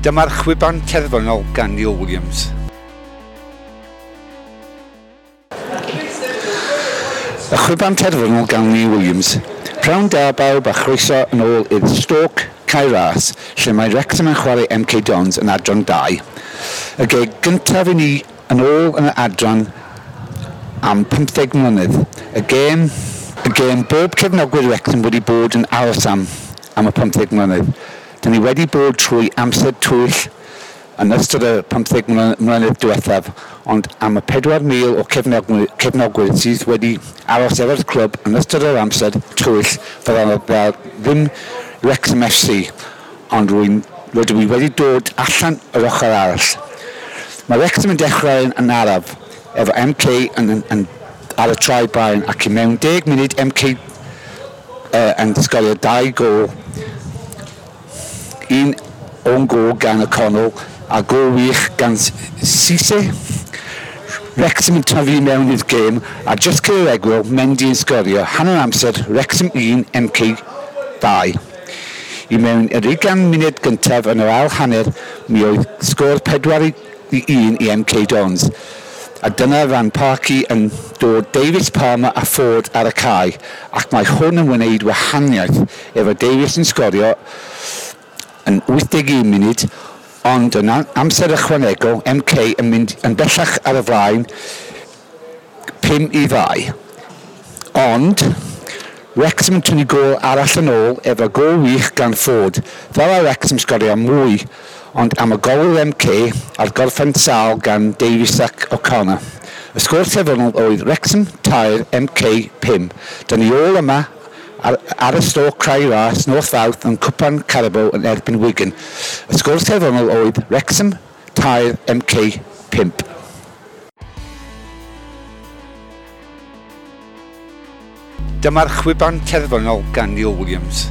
Dyma'r chwiban terfynol gan Neil Williams. Y chwiban terfynol gan Neil Williams. Prynhawn da bawb a chroeso yn ôl i'r Stoke Cae Ras, lle mae Wrexham yn chwarae MK Dons yn adran 2. Y gêm gyntaf i ni yn ôl yn y adran am 15 mlynedd. Y gêm bob cefnogwyr Wrexham wedi bod yn aros am y 15 mlynedd. Dyn ni wedi bod trwy amser tywyll yn ystod y 15 mlynedd diwethaf, ond am y 4,000 o cefnogwyr sydd wedi aros efo'r clwb yn ystod yr amser tywyll, fydda fel ddim Wrexham FC, ond rydw i wedi dod allan yr ochr arall. Mae Wrexham yn dechrau yn araf, efo MK yn ar y traed blaen, ac i mewn 10 munud MK yn sgorio dau gol, un own goal gan O'Connell a gol wych gan Cisse. Wrexham yn tyfu mewn i'r gêm a just cyn yr egwyl, Mendy yn sgorio. Hanner amser, Wrexham 1, MK 2. I mewn yr 20 munud gyntaf yn yr ail hanner, mi oedd sgôr 4-1 i MK Dons. A dyna fan Parky yn dod Davis, Palmer a Ford ar y cae, ac mae hwn yn wneud wahaniaeth efo Davis yn sgorio yn 81 munud, ond yn amser ychwanegol, MK yn mynd yn bellach ar y flaen 5-2. Ond Wrexham yn tynnu gôl arall yn ôl efo gôl wych gan Ford. Fel a Wrexham sgorio mwy, ond am y gôl MK a'r gorffen sâl gan Davies ac O'Connor. Y sgôr terfynol oedd Wrexham 3, MK 5. Dyna ni ôl yma ar y Stoke Cae Ras nos Fawrth yn Cwpan Carabao yn erbyn Wigan. Y sgôr terfynol oedd Wrexham 3, MK 5. Dyma'r chwiban terfynol gan Neil Williams.